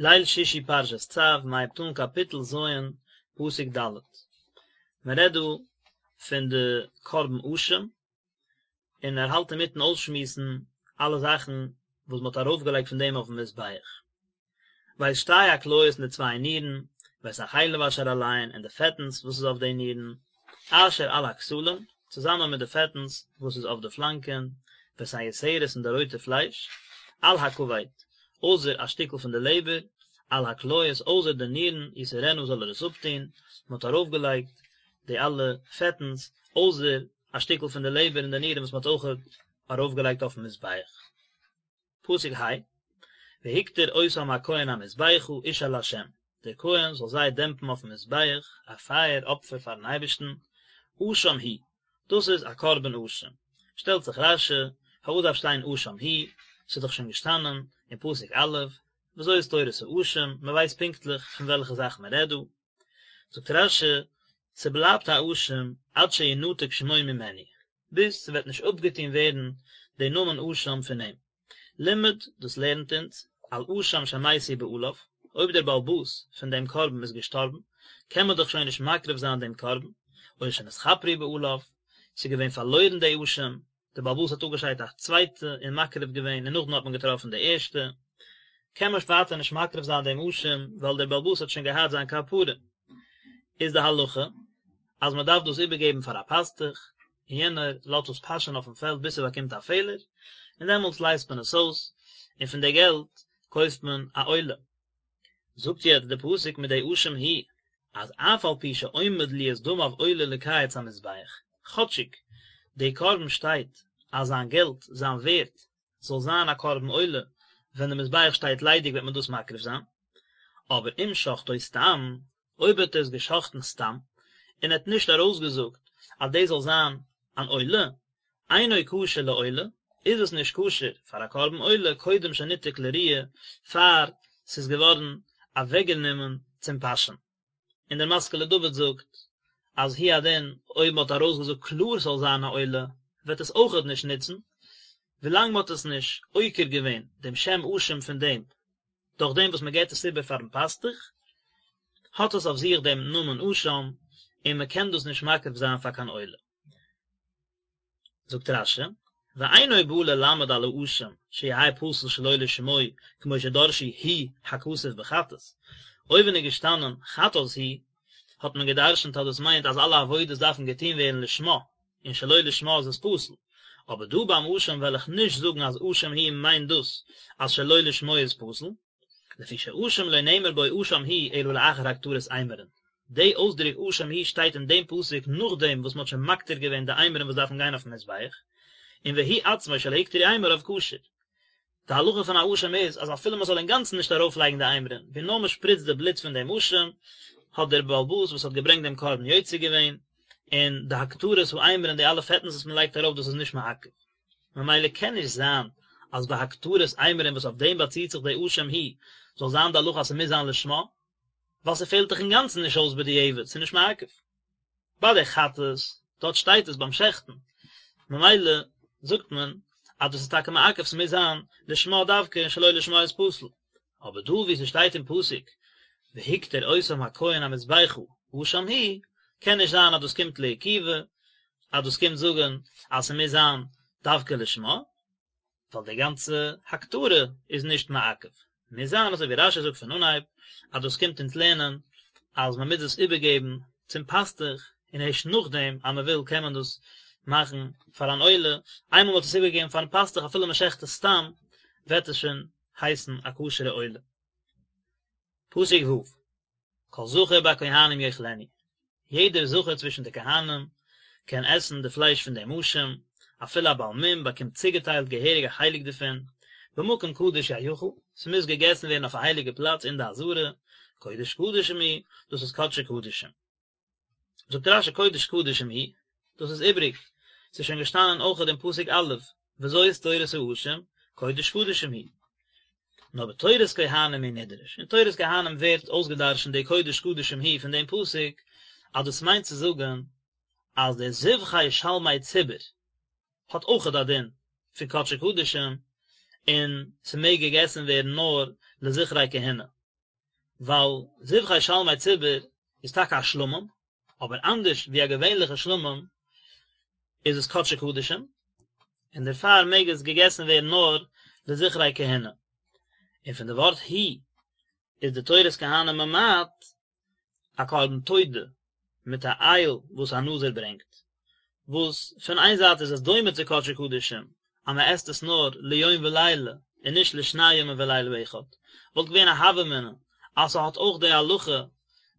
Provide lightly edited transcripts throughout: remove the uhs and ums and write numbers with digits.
ליל שישי פרשת צו, מ'הייבט אן קאפיטל ז', פסוק ד'. מען רעדט דא פון די קרבן אשם, און ער האלט אינמיטן אויסשמועסן אלע זאכן וואס מען האט ארויפגעלייגט פון דעם אויפן מזבח. ואת שתי הכליות און די צוויי נירן, ואת החלב אשר עליהן און די פעטנס וואס איז אויף די נירן, אשר על הכתלים, צוזאמען מיט די פעטנס וואס איז אויף די פלאנקען, ואת היותרת און די רויטע פלייש, על הכבד, אויסער א שטיקל פון די לעבער, על הכליות, אויסער די נירן, יסירנה זאל ער עס אפטון, מען האט ארויפגעלייגט די אלע פעטנס, אויסער א שטיקל פון די לעבער און די נירן וואס מען האט אויכעט ארויפגעלייגט אויפן מזבח. פסוק ה', והקטיר אותם הכהן המזבחה אשה לה', דער כהן זאל זיי דעמפן אויפן מזבח, א פייער אפפער פארן אייבערשטן, אשם הוא, דאס איז א קרבן אשם. שטעלט זיך רש"י, פארוואס דארף שטיין אשם הוא, ס'איז דאך שוין געשטאנען אין פסוק א', וזאת תורת האשם, מען ווייסט פונקטליך פון וועלכע זאך מען רעדט דא. זאגט רש"י, ס'בלייבט א אשם עד שינתק שמו ממנו, ביז ס'וועט נישט אפגעטון ווערן די נאמען אשם פון אים. לימד, דאס לערנט אונז, על אשם שמתו בעליו, אויב דער בעל הבית פון דעם קרבן איז געשטארבן, קען מען דאך שוין נישט מקריב זיין דעם קרבן, או שנתכפרו בעליו, ס'איז געווען פארלוירן די אשם, דער בעל הבית האט אפגעשיידט א צווייטע און מקריב געווען און נאכדעם האט מען געטראפן די ערשטע, קען מען ווייטער נישט מקריב זיין דעם אשם ווייל דער בעל הבית האט שוין געהאט זיין כפרה. איז די הלכה אז מען דארף דאס איבערגעבן פאר א פאסטוך, און יענער לאזט עס פאשען אויפן פעלד ביז ס'באקומט א פעלער, און דעמאלטס לייזט מען עס אויס, און פון די געלט קויפט מען א עולה. זאגט יעצט די פסוק מיט די אשם הוא, אז אף על פי שעומד להיות דמיו עולה לקיץ המזבח, כאטשיג די קרבן שטייט אז זיין געלט, זיין ווערט, זאל זיין א קרבן עולה, ווען די מזבח שטייט ליידיג וועט מען דאס מקריב זיין, אבער אם שחטו סתם, אויב האט ער עס געשחט'ן סתם, און ער האט נישט ארויסגעזאגט אז דאס זאל זיין אן עולה, אינו כשר לעולה, איז עס נישט כשר פאר א קרבן עולה קודם שניתק לרעיה, פאר ס'איז געווארן אוועקגענומען צום פאשען. און דער משכיל לדוד זאגט אז הוא הדין אויב מ'האט ארויסגעזאגט קלאר ס'זאל זיין א עולה וועט עס אויכעט נישט נוצן, ווילאנג מ'האט עס נישט עוקר געווען דעם שם אשם פון דעם דורך דעם וואס מ'געט עס איבער פארן פאסטוך, האט עס אויף זיך דעם נאמען אשם און מ'קען דאס נישט מקריב זיין פאר קיין עולה. זאגט רש"י, ואינו בא ללמד על האשם שיהא פסול שלא לשמו כמו שדרשו הוא הכתוב בחטאת, אויבן איז געשטאנען חטאת הוא, האט מען גע'דרש'נט אז דאס מיינט אז אלע עבודות דארפן געטון ווערן לשמה, און שלא לשמה איז עס פסול, אבער דא ביים אשם וועל איך נישט זאגן אז אשם הוא מיינט דאס אז שלא לשמו איז פסול. לפי שאשם לא נאמר בו אשם הוא אלא לאחר הקטרת אימורין. די אויסדרוק אשם הוא שטייט אין דעם פסוק נאכדעם וואס מען האט שוין מקטיר געווען די אימורין וואס דארפן גיין אויפן מזבח, און והוא עצמו שלא הוקטרו אימוריו כשר. די הלכה פון א אשם איז אז אפילו מען זאל אינגאנצן נישט ארויפלייגן די אימורין, ווי נאר מען שפריצט די בלוט פון דעם אשם, האט דער בעל הבית וואס האט געברענגט דעם קרבן יוצא געווען, און די הקטרת האימורין די אלע פעטנס וואס מען לייגט ארויף דאס איז נישט מעכב. ממילא קען נישט זיין אז ביי הקטרת אימורין וואס אויף דעם באציט זיך די אשם הוא זאל זיין די הלכה אז ס'מוז זיין לשמה, ווייל ס'פעלט דאך אינגאנצן נישט אויס בדיעבד, ס'איז נישט מעכב. ביי די חטאת, דארט שטייט עס ביים שעכטן, ממילא זאגט מען אז דאס איז טאקע מעכב ס'מוז זיין לשמה דווקא און שלא לשמה איז פסול. אבער דא וואו ס'שטייט אין פסוק והקטיר אותם הכהן המזבחה אשם הוא, קען נישט זיין אז דאס קומט לעיכובא, אז דאס קומט זאגן אז ס'מוז זיין דווקא לשמה, ווייל די גאנצע הקטרה איז נישט מעכב. מוז זיין אזוי ווי רש"י זאגט פון אנהייב, אז דאס קומט אונז לערנען אז מ'מוז עס איבערגעבן צום פאסטוך, און ערשט נאכדעם אז מ'וויל קען מען דאס מאכן פאר אן עולה, איינמאל מ'האט עס איבערגעגעבן פארן פאסטוך אפילו מ'שעכט עס סתם, וועט עס שוין הייסן א כשר'ע עולה. פסוק ו', כל זכר בכהנים יאכלנו, יעדער זכר צווישן די כהנים קען עסן די פלייש פון דעם אשם, אפילו א בעל מום באקומט צוגעטיילט געהעריג א חלק דערפון, במקום קדוש יאכל, ס'מוז געגעסן ווערן אויף א הייליגע פלאץ אין די עזרה, קודש קדשים הוא, דאס איז קדשי קדשים. זאגט רש"י קודש קדשים הוא, דאס איז איבריג, ס'איז שוין געשטאנען אויכעט אין פסוק א', וזאת תורת האשם, קודש קדשים הוא. נאר בתורת כהנים הוא נדרש, אין תורת כהנים ווערט אויסגעדרשנט די קודש קדשים הוא פון דעם פסוק, אז דאס מיינט צו זאגן אז די זבחי שלמי ציבור האט אויכעט א דין פון קדשי קדשים, און ס'מעג געגעסן ווערן נאר לזכרי כהונה. ווייל זבחי שלמי ציבור איז טאקע א שלמים, אבער אנדערש ווי א געווענליכע שלמים איז עס קדשי קדשים, און דערפאר מעג עס געגעסן ווערן נאר לזכרי כהונה. און פון די ווארט הוא איז די תורת כהנים ממעט א קרבן תודה מיט א איל וואס א נזיר ברענגט, וואס פון איין זייט איז עס דומה צו קדשי קדשים אז מען עסט עס נאר ליום ולילה און נישט לשני ימים ולילה אחד, וואלט געווען א הוה אמינא אז ס'האט אויך די הלכה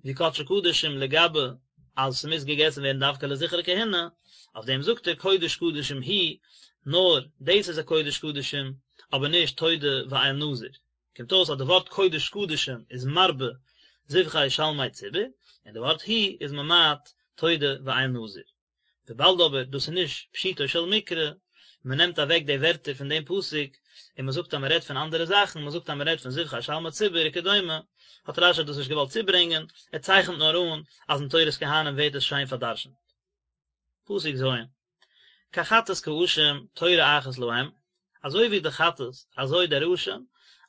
ווי קדשי קדשים לגבי אז ס'מוז געגעסן ווערן דווקא לזכר כהונה, אויף דעם זאגט ער קודש קדשים הוא, נאר דאס איז א קודש קדשים אבער נישט תודה ואיל נזיר. קומט אויס אז די ווארט קודש קדשים איז מרבה זבחי שלמי ציבור, און די ווארט הוא איז ממעט תודה ואיל נזיר. וויבאלד אבער דאס איז נישט פשוטו של מקרא, מען נעמט אוועק די ווערטער פון דעם פסוק און מען זאגט אז מען רעדט פון אנדערע זאכן, מען זאגט אז מען רעדט פון זבחי שלמי ציבור וכדומה, האט רש"י דאס נישט געוואלט צוברענגען, ער צייכנט נאר אן אז אין תורת כהנים ווערט עס שיין פארדרשנט. פסוק ז'. כחטאת כאשם תורה אחת להם, אזוי ווי די חטאת אזוי דער אשם,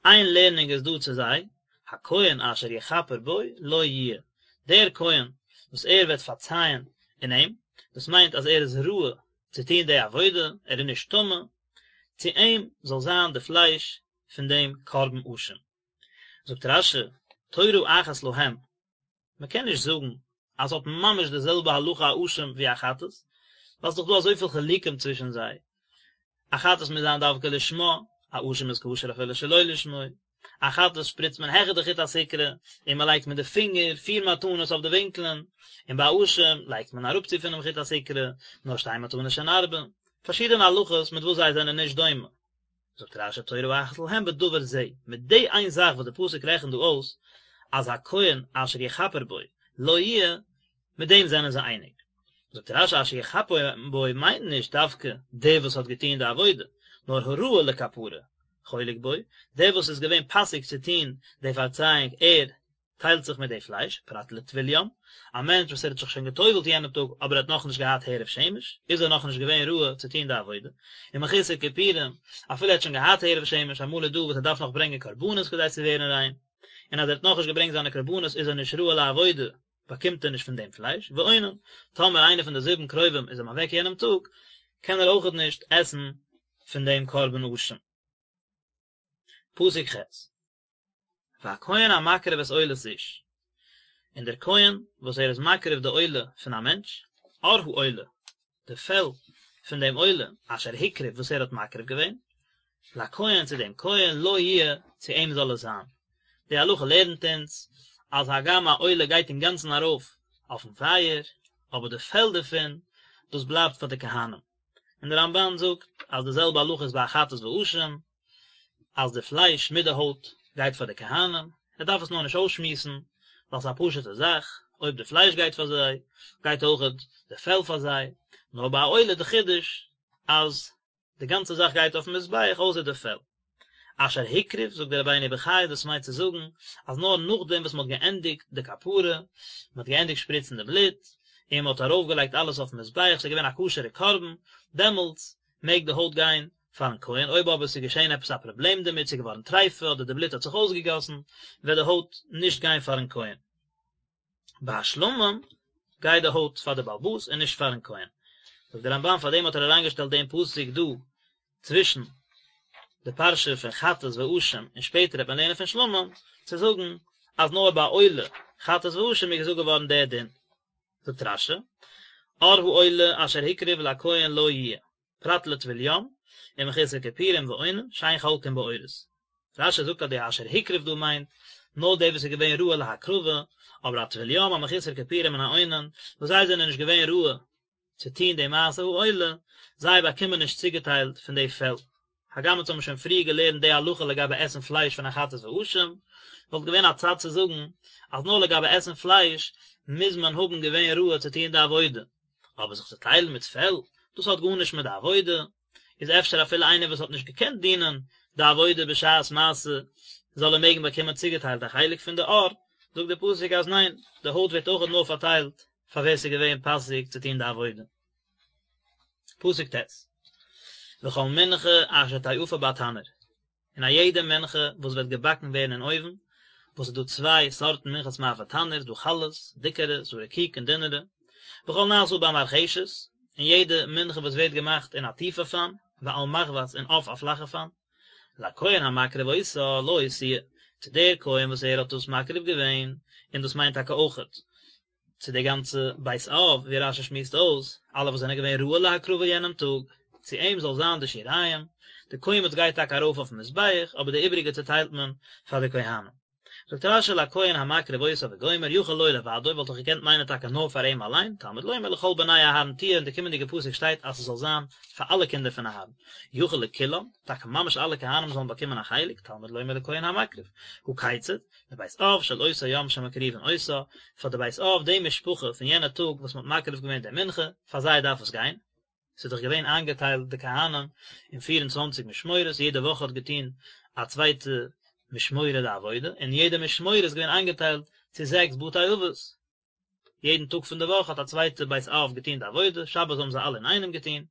איין לערנונג איז דא צו זיי, הכהן אשר יכפר בו לו יהיה, דער כהן וואס ער וועט פארצייען אין אים, דאס מיינט אז ער איז ראוי צו טון די עבודה, ער איז נישט טמא, צו אים זאל זיין די פלייש פון דעם קרבן אשם. זאגט רש"י, תורה אחת להם, מען קען נישט זאגן אז ס'האט ממש די זעלבע הלכה א אשם ווי א חטאת, ווייל ס'דאך דא אזויפיל חילוקים צווישן זיי, א חטאת מוז זיין דווקא לשמה, א אשם איז כשר אפילו שלא לשמו, א חטאת שפריצט מען העכער די חוט הסיקרא און מען לייגט מיט די פינגער פיר מתנות אויף די ווינקלען, און ביי א אשם לייגט מען אראפצו פונעם חוט הסיקרא נאר שתי מתנות שהן ארבע, פארשידענע הלכות מיט וואס זיי זענען נישט דומה. זאגט רש"י תורה אחת להם בדבר זה, מיט די איין זאך וואס די פסוק רעכנט דא אויס, אז הכהן אשר יכפר בו לו יהיה, מיט דעם זענען זיי אייניג. זאגט רש"י אשר יכפר בו מיינט נישט דווקא דער וואס האט געטון די עבודה, נאר הראוי לכפרה חולק בו, דער וואס איז געווען פאסיג צו טון די פארצייאונג ער טיילט זיך מיט די פלייש, פרט לטבול יום, א מענטש וואס ער האט זיך שוין גע'טובל'ט יענעם טאג אבער ער האט נאכנישט געהאט הערב שמש, איז ער נאכנישט געווען ראוי צו טון די עבודה, ומחוסר כיפורים, אפילו ער האט שוין געהאט הערב שמש, אמאל איז דא וואס ער דארף נאך ברענגען קרבנות כדי צו ווערן ריין, און אז ער האט נאכנישט געברענגט זיינע קרבנות איז ער נישט ראוי לעבודה, באקומט ער נישט פון דעם פלייש, ואונן, טאמער איינער פון די זיבן קרובים איז אים אוועק יענעם טאג, קען ער אויכעט נישט עסן פון דעם קרבן אשם. פסוק ח'. והכהן המקריב את עולת איש, און דער כהן וואס ער איז מקריב די עולה פון א מענטש, עור העולה, די פעל פון דעם עולה, אשר הקריב וואס ער האט מקריב געווען, לכהן צו דעם כהן, לו יהיה, צו אים זאל עס זיין. די הלכה לערנט אונז, אז הגם א עולה גייט אינגאנצן ארויף אויפן פייער, אבער די פעל דערפון, דאס בלייבט פאר די כהנים. און דער רמב"ן זאגט אז די זעלבע הלכה איז ביי א חטאת ואשם, אז די פלייש מיט די הויט גייט פאר די כהנים, ער דארף עס נאר נישט אויסשמועסן, ווייל ס'איז א פשוט'ע זאך, אויב די פלייש גייט פאר זיי, גייט אויכעט די פעל פאר זיי, נאר ביי א עולה די חידוש אז די גאנצע זאך גייט אויפן מזבח אויסער די פעל. אשר הקריב, זאגט דער רבינו בחיי, דאס מיינט צו זאגן אז נאר נאכדעם וואס מען האט געענדיגט די כפרה, מען האט געענדיגט שפריצן די בלוט, און מען האט ארויפגעלייגט אלעס אויפן מזבח, ס'איז געווען א כשר'ע קרבן, דעמאלטס מעג די הויט גיין פארן כהן, אויב אבער ס'איז געשען עפעס א פראבלעם דערמיט, ס'איז געווארן טריפה אדער די בלוט האט זיך אויסגעגאסן, וועט די הויט נישט גיין פארן כהן. ביי שלמים גייט די הויט פאר די בעל הבית און נישט פארן כהן. זאגט דער רמב"ן פאר דעם האט ער אריינגעשטעלט דעם פסוק דא צווישן די פרשה פון חטאת ואשם און שפעטער וועט מען לערנען פון שלמים צו זאגן אז נאר ביי עולה חטאת ואשם איז געזאגט געווארן דער דין. זאגט רש"י, עור העולה אשר הקריב לכהן לו יהיה. פרט לטבול יום, ומחוסר כיפורים ואונן, שאין חולקין בעורות. רש"י זאגט אז די אשר הקריב דא מיינט, נאר דער וואס איז געווען ראוי להקרבה, אבער א טבול יום, א מחוסר כיפורים און א אונן, וואס זיי זענען נישט געווען ראוי צו טון די מעשה העולה, זיי באקומען נישט צוגעטיילט פון די פעל. הגם אונז האבן שוין פריער געלערנט די הלכה לגבי עסן פלייש פון א חטאת ואשם, וואלט געווען א צד צו זאגן אז נאר לגבי עסן פלייש מוז מען האבן געווען ראוי צו טון די עבודה, אבער זיך צו טיילן מיט פעל, דאס האט גארנישט מיט די עבודה, איז אפשר אפילו איינער וואס האט נישט געקענט דינען די עבודה בשעת מעשה, זאל ער מעגן באקומען צוגעטיילט א חלק פון די עור, זאגט דער פסוק אז ניין, די הויט ווערט אויכעט נאר פארטיילט פאר ווער ס'איז געווען פאסיג צו טון די עבודה. פסוק ט', וכל מנחה אשר תאפה בתנור, און א יעדע מנחה וואס וועט געבאקן ווערן אין אויוון, וואס איז דא צוויי סארטן מנחת מאפה תנור, ס'דא חלות, דיקערע, ס'דא רקיק און דינערע, וכל נעשה במרחשת, און יעדע מנחה וואס ווערט געמאכט אין א טיפע פאן, ועל מחבת און אויף א פלאכע פאן, לכהן המקריב אותה לו תהיה, צו דער כהן וואס ער האט דאס מקריב געווען, און דאס מיינט טאקע אויכעט צו די גאנצע בית אב, ווי רש"י שמועסט אויס, אלע וואס זענען געווען ראוי להקרבה יענעם טאג, צו אים זאל זיין די שיריים, די קומץ גייט טאקע ארויף אויפן מזבח, אבער די איבריגע צוטיילט מען פאר די כהנים. זאגט רש"י לכהן המקריב אותה וגומר יכול לו לבדו וואלט איך געקענט מיינען טאקע נאר פאר אים אליין, תלמוד לומר לכל בני אהרן תהיה אין די קומענדיגע פסוק שטייט אז ס'זאל זיין פאר אלע קינדער פון אהרן, יכול לכולם, טאקע ממש אלע כהנים זאלן באקומען א חלק, תלמוד לומר לכהן המקריב, הא כיצד, לבית אב של אותו יום שמקריבין אותה, פאר די בית אב די משפחה פון יענע טאג וואס מ'האט מקריב געווען די מנחה, פאר זיי דארף עס גיין. ס'איז דאך געווען איינגעטיילט די כהנים אין פיר און צוואנציג משמורות, יעדע וואך האט געטון א צווייטע משמורה די עבודה, און יעדע משמורה איז געווען איינגעטיילט צו זעקס בתי אבות, יעדן טאג פון די וואך האט א צווייטע בית אב געטון די עבודה, שבת האבן זיי אלע אינאיינעם געטון,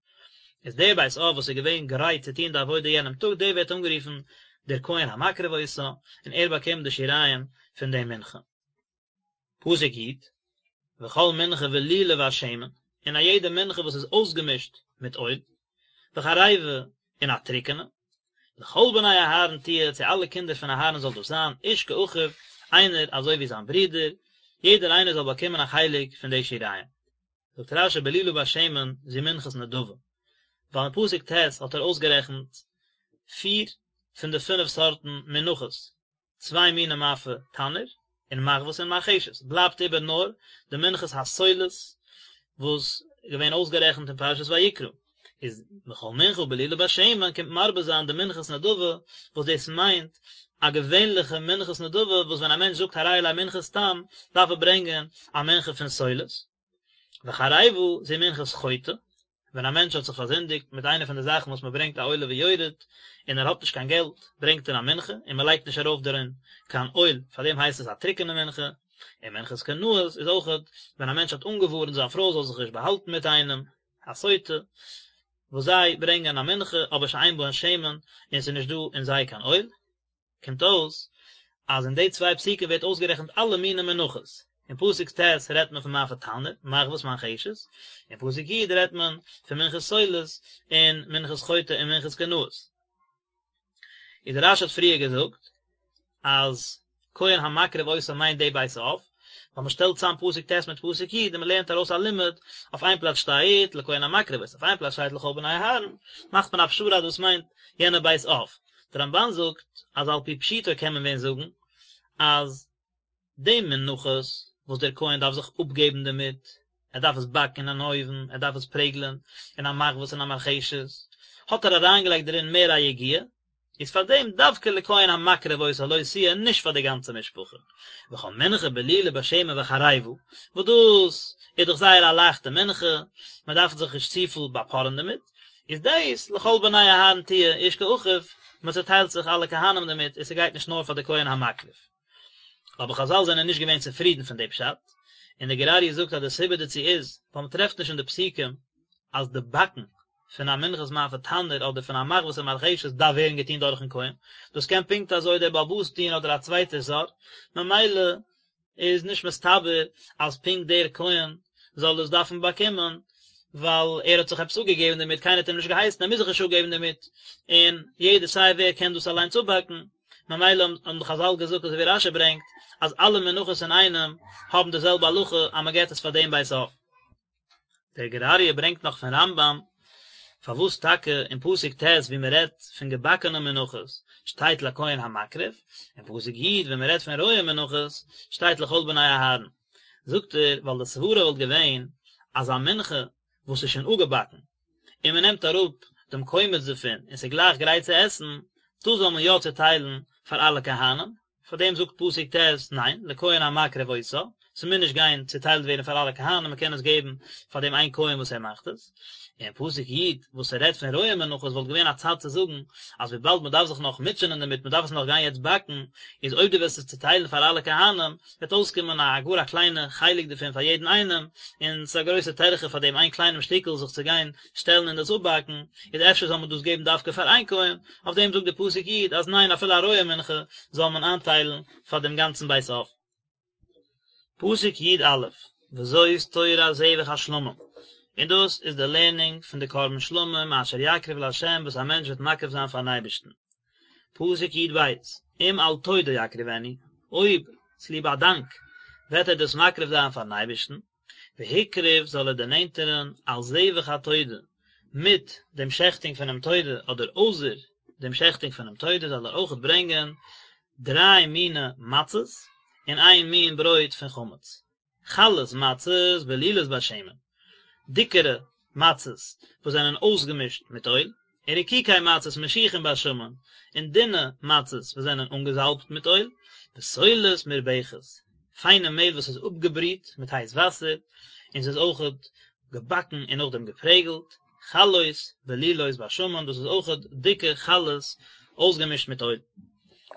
איז דער בית אב וואס איז געווען גרייט צו טון די עבודה יענעם טאג, דער ווערט אנגערופן דער כהן המקריב אותה, און ער באקומט די שיריים פון די מנחה. פסוק י, וכל מנחה בלולה בשמן, און א יעדע מנחה וואס איז אויסגעמישט מיט אויל, וחרבה, און א טרוקענע, לכל בני אהרן תהיה, צו אלע קינדער פון אהרן זאל דאס זיין, איש כאחיו, איינער אזוי ווי זיין ברודער, יעדער איינער זאל באקומען א חלק פון די שיריים. זאגט רש"י בלולה בשמן זו מנחת נדבה, ווייל אין פסוק ט' האט ער אויסגערעכנט פיר פון די פינף סארטן מנחות, צוויי מיני מאפה תנור, און מחבת און מרחשת, בלייבט איבער נאר די מנחת הסולת וואס איז געווען אויסגערעכנט אין פרשת ויקרא, איז וכל מנחה בלולה בשמן קומט מרבה זיין די מנחת נדבה, וואס דאס מיינט א געווענליכע מנחת נדבה וואס ווען א מענטש זאגט הרי עלי מנחה סתם דארף ער ברענגען א מנחה פון סולת. וחרבה זו מנחת חוטא, ווען א מענטש האט זיך פארזינדיגט מיט איינע פון די זאכן וואס מען ברענגט א עולה ויורד, און ער האט נישט קיין געלט, ברענגט ער א מנחה, און מען לייגט נישט ארויף דערין קיין אויל, פאר דעם הייסט עס א טרוקענע מנחה, און מנחת קנאות איז אויכעט ווען א מענטש האט אנגעווארנט זיין פרוי זאל זיך נישט באהאלטן מיט איינעם, א סוטה, וואס זיי ברענגען א מנחה אבער שאין בהן שמן, און עס איז נישט דא אין זיי קיין אויל. קומט אויס אז אין די צוויי פסוקים ווערט אויסגערעכנט אלע מיני מנחות, אין פסוק ט' רעדט מען פון מאפה תנור, מחבת מרחשת, אין פסוק י' רעדט מען פון מנחת סולת און מנחת חוטא און מנחת קנאות. איז דער רש"י האט פריער געזאגט אז כהן המקריב אותה מיינט די בית אב, ווייל מען שטעלט צאם פסוק ט' מיט פסוק י' און מען לערנט ארויס א לימוד, אויף איין פלאץ שטייט לכהן המקריב אותה, אויף איין פלאץ שטייט לכל בני אהרן, מאכט מען א פשרה אז דאס מיינט יענע בית אב. דער רמב"ן זאגט אז על פי פשוטו קען מען ווען זאגן אז די מנחות וואס דער כהן דארף זיך אפגעבן דערמיט, ער דארף עס באקן אין אן אויוון, ער דארף עס פרעגלען אין א מחבת און א מרחשת, האט ער אריינגעלייגט דערין מער א יגיעה, איז פאר דעם דווקא לכהן המקריב אותה לו תהיה און נישט פאר די גאנצע משפחה. וכל מנחה בלולה בשמן וחרבה, וואס דאס איז דאך זייער א לייכטע מנחה, מען דארף זיך נישט צופיל באפארען דערמיט, איז דאס לכל בני אהרן תהיה איש כאחיו, מען צעטיילט זיך אלע כהנים דערמיט און ס'גייט נישט נאר פאר די כהן המקריב. אבער חזל זענען נישט געווען צופרידן פון די פשט, און די גור אריה זאגט אז די סיבה דערצו איז, ווייל מען טרעפט נישט אין די פסוקים אז די באקן פון א מנחת מאפה תנור אדער פון א מחבת און מרחשת דארף ווערן געטון דורכן כהן, דאס קען פונקט אזוי דער בעל הבית טון אדער א צווייטער זר, ממילא איז נישט מסתבר אז פונקט דער כהן זאל עס דארפן באקומען, ווייל ער האט זיך עפעס אפגעגעבן דערמיט, קיינער האט אים נישט געהייסן, ער מוז זיך נישט אפגעבן דערמיט, און יעדער סיי ווער קען דאס אליינס אפבאקן, ממילא האבן די חזל געזאגט אזוי ווי רש"י ברענגט, אז אלע מנחות אינאיינעם האבן די זעלבע הלכה אז מען געבט עס פאר דעם בית אב. דער גור אריה ברענגט נאך פון רמב"ם, פארוואס טאקע אין פסוק ט' ווי מען רעדט פון געבאקענע מנחות שטייט לכהן המקריב, אין פסוק י' ווען מען רעדט פון רויע מנחות שטייט לכל בני אהרן, זאגט ער ווייל די סברה וואלט געווען אז א מנחה וואס איז שוין אפגעבאקן און מען נעמט אראפ דעם קומץ דערפון און ס'איז גלייך גרייט צו עסן, דאס זאל מען יא צוטיילן פאר אלע כהנים, פאר דעם זאגט פסוק ט', ניין, לכהן המקריב אותה, ס'מוז נישט גיין צוטיילט ווערן פאר אלע כהנים, מ'קען עס געבן פאר דעם איין כהן וואס ער מאכט עס. און פסוק י' וואס ס'רעדט פון רועה מנחות וואלט געווען א צד צו זאגן אז וויבאלד מ'דארף זיך נאך מוטשענען דערמיט, מ'דארף עס נאך גיין יעצט באקן, איז אויב דו וועסט עס צוטיילן פאר אלע כהנים, וועט אויסקומען א גאר א קליינע חלק דערפון פאר יעדן איינעם, און ס'איז א גרויסע טרחה פאר דעם איין קליינעם שטיקל זיך צו גיין שטעלן און דאס אפבאקן, איז אפשר זאל מען דאס געבן דווקא פאר איין כהן, אויף דעם זאגט די פסוק י' אז ניין אפילו א רועה מנחה זאל מען איינטיילן פאר דעם גאנצן בית אב. פסוק י א, וזאת תורת זבח השלמים, און דאס איז די לערנונג פון די קרבן שלמים אשר יקריב לה' וואס א מענטש וועט מקריב זיין פארן אייבערשטן. פסוק י ב, אם על תודה יקריבנו, אויב צוליב א דאנק וועט ער דאס מקריב זיין פארן אייבערשטן, והקריב זאל ער דערנענטערן על זבח התודה, מיט דעם שעכטונג פונעם תודה אדער אויסער דעם שעכטונג פונעם תודה זאל ער אויכעט ברענגען דריי מיני מצות און איין מין ברויט פון חמץ. חלות מצות בלולות בשמן, דיקערע מצות וואס זענען אויסגעמישט מיט אויל, און רקיקי מצות משוחים בשמן, און דינע מצות וואס זענען אנגעזאלבט מיט אויל, וסולת מרבכת, פיינע מעהל וואס איז אפגעבריט מיט הייס וואסער, און ס'איז אויכעט געבאקן און נאכדעם געפרעגלט, חלות בלולות בשמן, דאס איז אויכעט דיקע חלות אויסגעמישט מיט אויל.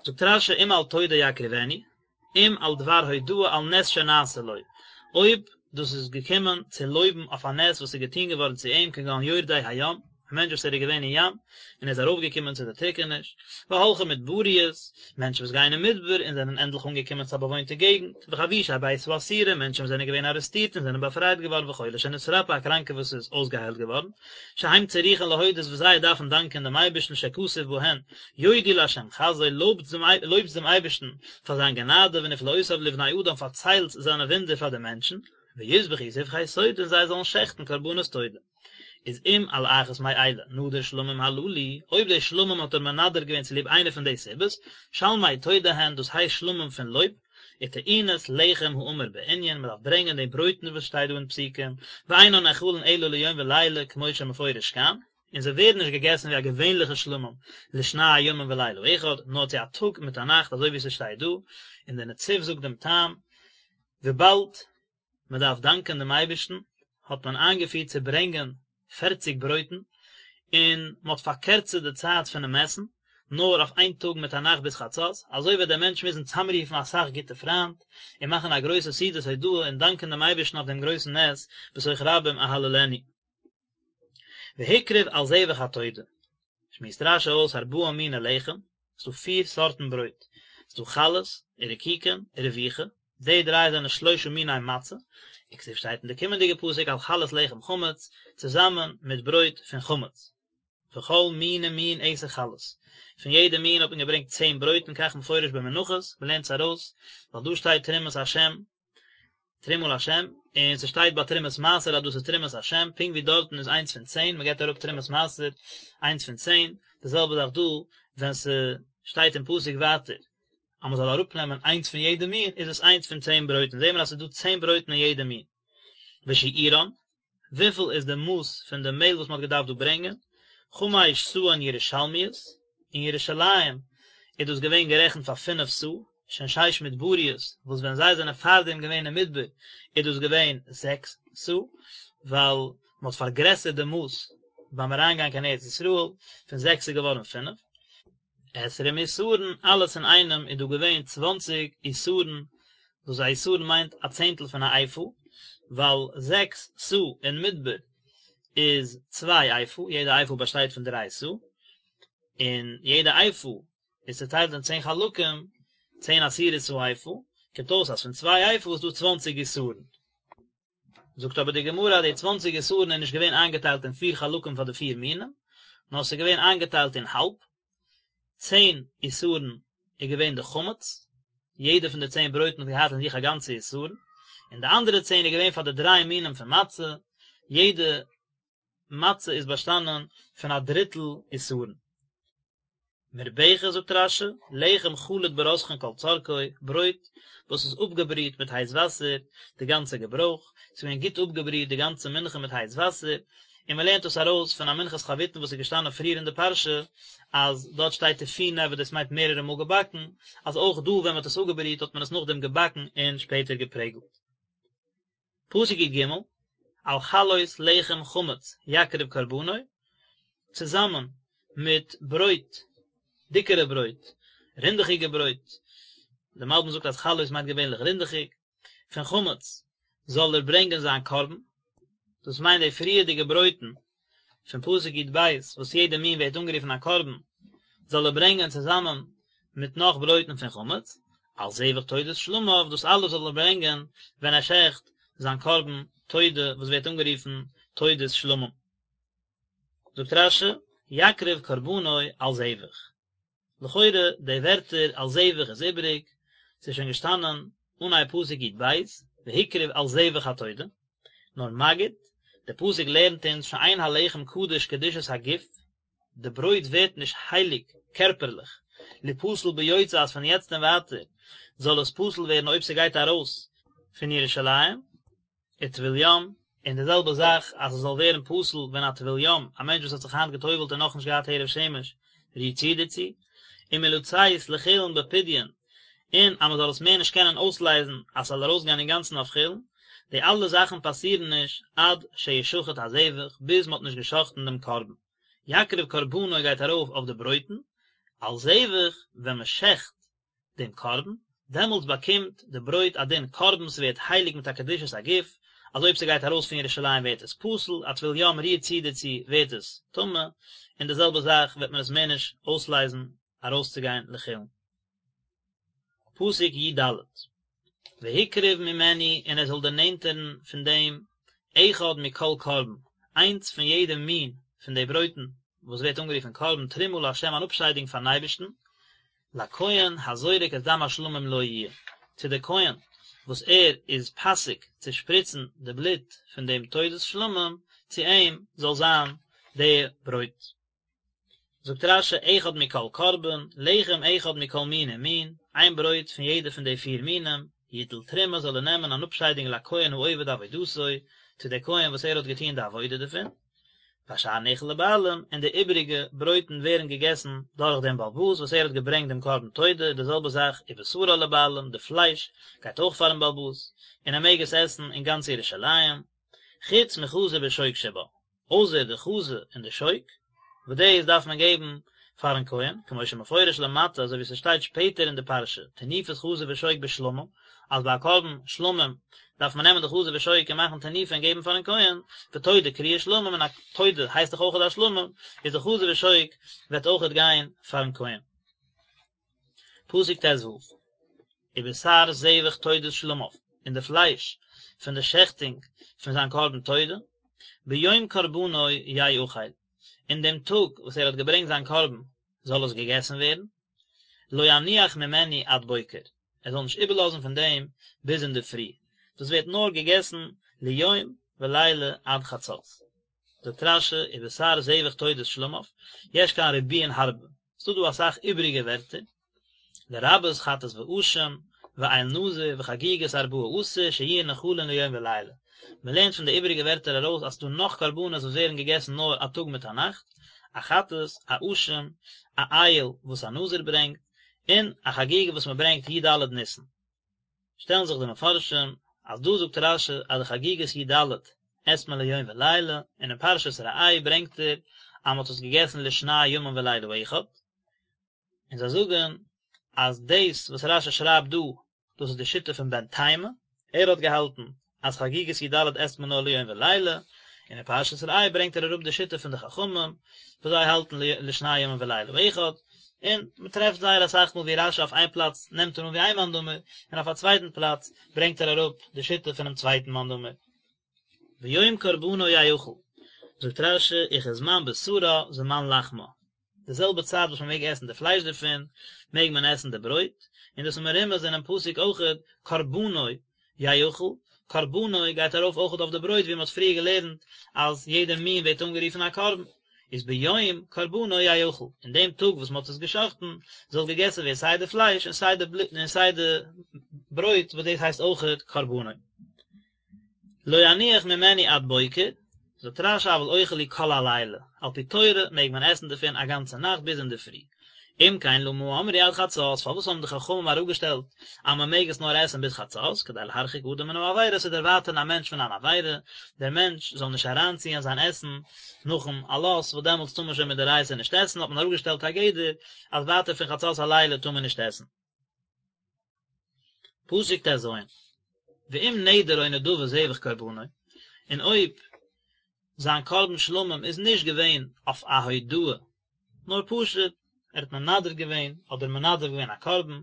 זאגט רש י אם על תודה יקריבנו, אם על דבר הודאה על נס שנעשה לו, אויב דאס איז געקומען צו לויבן אויף א נס וואס איז געטון געווארן צו אים כגון יורדי הים, א מענטש וואס ער איז געווען אין ים און ער איז ארויפגעקומען צו די טריקעניש, והולכי מדבריות, מענטשן וואס גייען אין מדבר און זענען ענדליך אנגעקומען צו א באוואוינטע געגנט, וחבושי בית האסורים, מענטשן וואס זענען געווען ארעסטירט און זענען באפרייט געווארן וחולה שנתרפא, א קראנקער וואס איז אויסגעהיילט געווארן, שהם צריכין להודות וואס זיי דארפן דאנקען דעם אייבערשטן שכתוב בהן, יודו לה' חסדו, לויבטס דעם אייבערשטן פאר זיין גענאדע ונפלאותיו לבני אדם פארציילטס זיינע וואונדער פאר די מענטשן, ויזבחו זבחי תודה און זיי זאלן שעכטן קרבנות תודה. איז אם על אחת מאלה נדר שלמים הללו, אויב די שלמים האט ער מנדר געווען צוליב איינע פון די סיבות, שלמי תודה הן, דאס הייסט שלמים פון לויב, וטעונות לחם האמור בענין, מען דארף ברענגען די ברויטן וואס שטייט דא אין פסוקים, ואינן נאכלין אלא ליום ולילה כמו שמפורש כאן, און זיי ווערן נישט געגעסן ווי א געווענליכע שלמים לשני ימים ולילה אחד, נאר צו א טאג מיט א נאכט אזוי ווי ס'שטייט דא, און דער נציב זאגט דעם טעם, וויבאלד מען דארף דאנקען דעם אייבערשטן, האט מען איינגעפירט צו ברענגען פערציג ברויטן, און מען האט פארקערצערט די צייט פונעם עסן, נאר אויף איין טאג מיט א נאכט ביז חצות, אזוי וועט דער מענטש מוזן צאמרופן אסאך גוטע פריינט, און מאכן א גרויסע סעודת הודאה און דאנקען דעם אייבערשטן אויף דעם גרויסן נס, בתוך רבים אהללנו. והקריב על זבח התודה, שמועסט רשי אויס ארבעה מיני לחם, ס'דא פיר סארטן ברויט, ס'דא חלות, ורקיקין, ורבוכה, די דריי זענען שלושה מיני מצה, וכתיב שטייט אין די קומענדיגע פסוק על חלות לחם חמץ, צוזאמען מיט ברויט פון חמץ. וכל מין ומין עשר חלות, פון יעדע מין האט מען געברענגט צען ברויטן כך מפורש במנחות, מ'לערנט עס ארויס, ווייל דא שטייט תרומת השם, תרומה להשם, און ס'שטייט ביי תרומת מעשר אז דאס איז תרומת השם, פונקט ווי דארטן איז איינס פון צען, מ'געבט אראפ תרומת מעשר איינס פון צען, די זעלבע זאך דא ווען ס'שטייט אין פסוק ווייטער אז מ'זאל אראפנעמען איינס פון יעדע מין, איז עס איינס פון צען ברויטן, זעהן מיר אז ס'איז דא צען ברויטן אין יעדע מין. ושיעורן, וויפיל איז די מאס פון די מעהל וואס מ'האט געדארפט דא ברענגען? חמש סאין ירושלמיות, אין ירושלים איז דאס געווען גערעכנט פאר פינף סאה, שהן שש מדבריות, וואס ווען זיי זענען פארדעם געווען אין מדבר איז דאס געווען זעקס סאה, ווייל מ'האט פארגרעסערט די מאס ביים אריינגיין קיין ארץ ישראל, פון זעקס איז געווארן פינף. עשרים עישורון, אלעס אינאיינעם איז דא געווען צוואנציג עישורון, וואס א עישורון מיינט א צענטל פון א איפה, ווייל זעקס סאה אין מדבר איז צוויי איפה, יעדע איפה באשטייט פון דריי סאה, און יעדע איפה איז צעטיילט אין צען חלקים, צען עשירית האיפה, קומט אויס אז פון צוויי איפה איז דא צוואנציג עישורון. זאגט אבער די גמרא אז די צוואנציג עשרון איז נישט געווען איינגעטיילט אין פיר חלקים פאר די פיר מינים, נאר עס איז געווען איינגעטיילט אין האלב, צען עשרון איז געווען די חמץ, יעדע פון די צען ברויטן האט געהאט אין זיך א גאנצע עשרון, און די אנדערע צען איז געווען פאר די דריי מינים פון מצה, יעדע מצה איז באשטאנען פון א דריטל עשרון. מרובכת זאגט רש"י, לחם חלוט ברותחין כל צרכו, ברויט וואס איז אפגעבריט מיט הייס וואסער, די גאנצע געברויך, ס'איז געווען גוט אפגעבריט די גאנצע מנחה מיט הייס וואסער, און מען לערנט דאס ארויס פון א מנחת חביתין וואס איז געשטאנען פריער אין די פרשה, אז דארט שטייט תפונה וואס דאס מיינט מערערע מאל געבאקן, אז אויך דא ווען מען האט עס אפגעבריט האט מען עס נאכדעם געבאקן און שפעטער געפרעגלט. פסוק י ג, על חלות לחם חמץ יקריב קרבנו, צוזאמען מיט ברויט, דיקערע ברויט, רינדעכיגע ברויט, דער מלבי"ם זאגט אז חלות מיינט געווענליך רינדעכיג, פון חמץ זאל ער ברענגען זיין קרבן, דאס מיינט די פריערדיגע ברויטן פון פסוק י ב וואס יעדע מין ווערט אנגערופן א קרבן, זאל ער ברענגען צוזאמען מיט נאך ברויטן פון חמץ, על זבח תודת שלמיו, דאס אלעס זאל ער ברענגען ווען ער שעכט זיין קרבן תודה וואס ווערט אנגערופן תודת שלמים. זאגט רש"י, יקריב קרבנו על זבח. לכאורה די ווערטער על זבח איז איבעריג, ס'איז שוין געשטאנען אנהייב פסוק י ב, והקריב על זבח התודה, נאר מגיד, די פסוק לערנט אונז שאין הלחם קדוש קדושת הגוף, די ברויט ווערט נישט הייליג קערפערליך, ליפסל ביוצא אז פון יעצט און ווייטער זאל עס פסול ווערן אויב ס'גייט ארויס פון ירושלים, וטבול יום, און די זעלבע זאך אז עס זאל ווערן פסול ווען א טבול יום, א מענטש וואס האט זיך היינט גע'טובל'ט און נאכנישט געהאט הערב שמש, רירט צו דערצו, ומלצאת לחולין בפדיון, און אז מען זאל עס מער נישט קענען אויסלייזן אז ס'זאל ארויסגיין אינגאנצן אויף חולין, די אלע זאכן פאסירן נישט עד שישחט הזבח, ביז מען האט נישט גע'שחט'ן דעם קרבן. יקריב קרבנו גייט ארויף אויף די ברויטן, על זבח ווען מען שעכט דעם קרבן, דעמאלטס באקומט די ברויט א דין קרבן, ס'ווערט הייליג מיט א קדושת הגוף, אז אויב ס'גייט ארויס פון ירושלים ווערט עס פסול, א טבול יום רירט צו דערצו ווערט עס טמא, און די זעלבע זאך וועט מען עס מער נישט אויסלייזן ארויסצוגיין לחולין. פסוק י ד, והקריב ממנו און ער זאל דערנענטערן פון דעם אחד מכל קרבן, איינס פון יעדע מין פון די ברויטן וואס ווערט אנגערופן קרבן תרומה לה' אן אפשיידונג פארן אייבערשטן, לכהן הזורק את דם השלמים לו יהיה, צו די כהן וואס ער איז פאסיג צו שפריצן די בלוט פון דעם תודת שלמים, צו אים זאל זיין די ברויט. זאגט רש"י אחד מכל קרבן, לחם אחד מכל מין ומין, איין ברויט פון יעדע פון די פיר מינים, יטול תרומה זאל ער נעמען אן אפשיידונג לכהן העובד עבודתו, צו די כהן וואס ער האט געטון די עבודה דערפון, והשאר נאכל לבעלים, און די איבעריגע ברויטן ווערן געגעסן דורך דעם בעל הבית וואס ער האט געברענגט דעם קרבן תודה, די זעלבע זאך ובשרה לבעלים, די פלייש גייט אויך פארן בעל הבית, און ער מעג עס עסן אין גאנץ ירושלים, חוץ מחזה ושוק שבה. אויסער די חזה און די שוק, וואס דאס דארף מען געבן פארן כהן, כמו שמפורש למטה, אזוי ווי ס'שטייט שפעטער אין די פרשה, תנופת חזה ושוק בשלמים, אז ביי א קרבן שלמים דארף מען נעמען די חזה ושוק און מאכן תנופה און געבן פארן כהן, ותודה קרויה שלמים און א תודה הייסט דאך אויכעט א שלמים, איז די חזה ושוק וועט אויכעט גיין פארן כהן. פסוק ט ו, ובשר זבח תודת שלמיו, און די פלייש פון די שעכטונג פון זיין קרבן תודה, ביום קרבנו יאכל, אין דעם טאג וואס ער האט געברענגט זיין קרבן זאל עס געגעסן ווערן, לא יניח ממנו עד בוקר, ער זאל נישט איבערלאזן פון דעם ביז אינדערפרי, דאס ווערט נאר געגעסן ליום ולילה עד חצות. זאגט רש"י ובשר זבח תודת שלמיו, יש כאן ריבויין הרבה, ס'דא דא אסאך איבעריגע ווערטער, לרבות חטאת ואשם, ואיל נזיר, וחגיגת ארבעה עשר שיהיו נאכלין ליום ולילה. מען לערנט פון די איבעריגע ווערטער ארויס אז ס'דא נאך קרבנות וואס ווערן געגעסן נאר א טאג מיט א נאכט, א חטאת, א אשם, א איל וואס א נזיר ברענגט, און א חגיגה וואס מען ברענגט י ד ניסן. שטעלן זיך די מפרשים אז דא זאגט רש"י אז די חגיגת י ד עסט מען ליום ולילה, און אין פרשת ראה ברענגט ער אז מען האט עס געגעסן לשני ימים ולילה אחד, און זיי זאגן אז דאס וואס רש"י שרייבט דא דאס איז די שיטה פון בן תימא, ער האט געהאלטן אז חגיגת י ד עסט מען נאר ליום ולילה, און אין פרשת ראה ברענגט ער אראפ די שיטה פון די חכמים וואס זיי האלטן לשני ימים ולילה אחד, און מען טרעפט זייער אסאך מאל ווי רש"י אויף איין פלאץ נעמט ער אן ווי איין מאן דאמר, און אויף א צווייטן פלאץ ברענגט ער אראפ די שיטה פונעם צווייטן מאן דאמר. ביום קרבנו יאכל, זאגט רש"י, וכזמן בשרה זמן לחמה, די זעלבע צייט וואס מען מעג עסן די פלייש דערפון, מעג מען עסן די ברויט, און דאס איז מרומז אינעם פסוק אויכעט, קרבנו יאכל, קרבנו גייט ארויף אויכעט אויף די ברויט ווי מען האט פריער געלערנט אז יעדע מין ווערט אנגערופן א קרבן, איז ביום קרבנו יאכל, אין דעם טאג וואס מען האט עס געשחט'ן, זאל געגעסן ווערן סיי די פלייש און סיי די בלוט און סיי די ברויט וואס דאס הייסט אויכעט קרבנו. לא יניח ממנו עד בוקר, זאגט רש"י אבל אוכל הוא כל הלילה, על פי תורה מעג מען עסן דערפון א גאנצע נאכט ביז אינדערפרי. אם כן למה אמרו עד חצות, פארוואס האבן די חכמים אראפגעשטעלט אז מען מעג עס נאר עסן ביז חצות, כדי להרחיק אדם מן העבירה, צו דערווייטערן א מענטש פון אן עבירה, דער מענטש זאל נישט אריינציען זיין עסן נאכן עלות, וואס דעמאלטס טאר מען שוין מדאורייתא נישט עסן, האט מען אראפגעשטעלט א גדר אז ווייטער פון חצות הלילה טאר מען נישט עסן. פסוק טז, ואם נדר או נדבה זבח קרבנו, און אויב זיין קרבן שלמים איז נישט געווען אויף א הודאה, נאר פשוט ער האט מנדר געווען, אדער מנדב געווען א קרבן,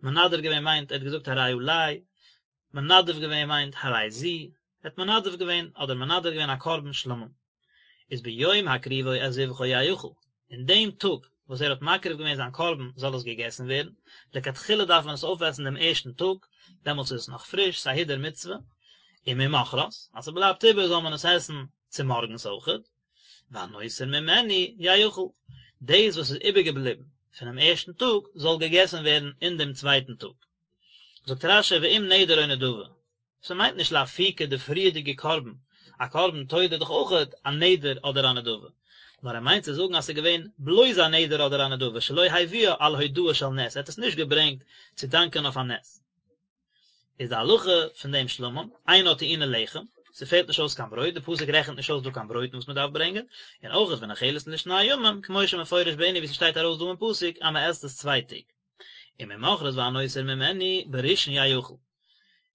מנדר געווען מיינט ער האט געזאגט הרי עלי, מנדב געווען מיינט הרי זו, ער האט מנדב געווען אדער מנדר געווען א קרבן שלמים, איז ביום הקריבו את זבחו יאכל, אין דעם טאג וואס ער האט מקריב געווען זיין קרבן זאל עס געגעסן ווערן, לכתחילה דארף מען עס אויפעסן דעם ערשטן טאג, דעמאלטס איז עס נאך פריש, ס'איז א הידור מצוה, וממחרת, אז ס'בלייבט איבער זאל מען עס עסן צומארגנס אויכעט, והנותר ממנו יאכל, דאס וואס איז איבערגעבליבן פונעם ערשטן טאג זאל געגעסן ווערן אין דעם צווייטן טאג. זאגט רש"י ואם נדר או נדבה, ס'מיינט נישט לאפוקי די פריערדיגע קרבן, א קרבן תודה איז דאך אויכעט א נדר אדער א נדבה, נאר ער מיינט צו זאגן אז ס'איז געווען בלויז א נדר אדער א נדבה שלא הביאה על הודאה של נס, ער האט עס נישט געברענגט צו דאנקען אויף א נס. איז די הלכה פון דעם שלמים, אינה טעונה לחם, ס'פעלט נישט אויס קיין ברויט, די פסוק רעכנט נישט אויס דא קיין ברויטן וואס מ'דארף ברענגען, און אויכעט ונאכלת לשני ימים, כמו שמפורש בענין ווי ס'שטייט ארויס דא אין פסוק אז מ'עסט עס צוויי טעג. וממחרת והנותר ממנו בראשון יאכל.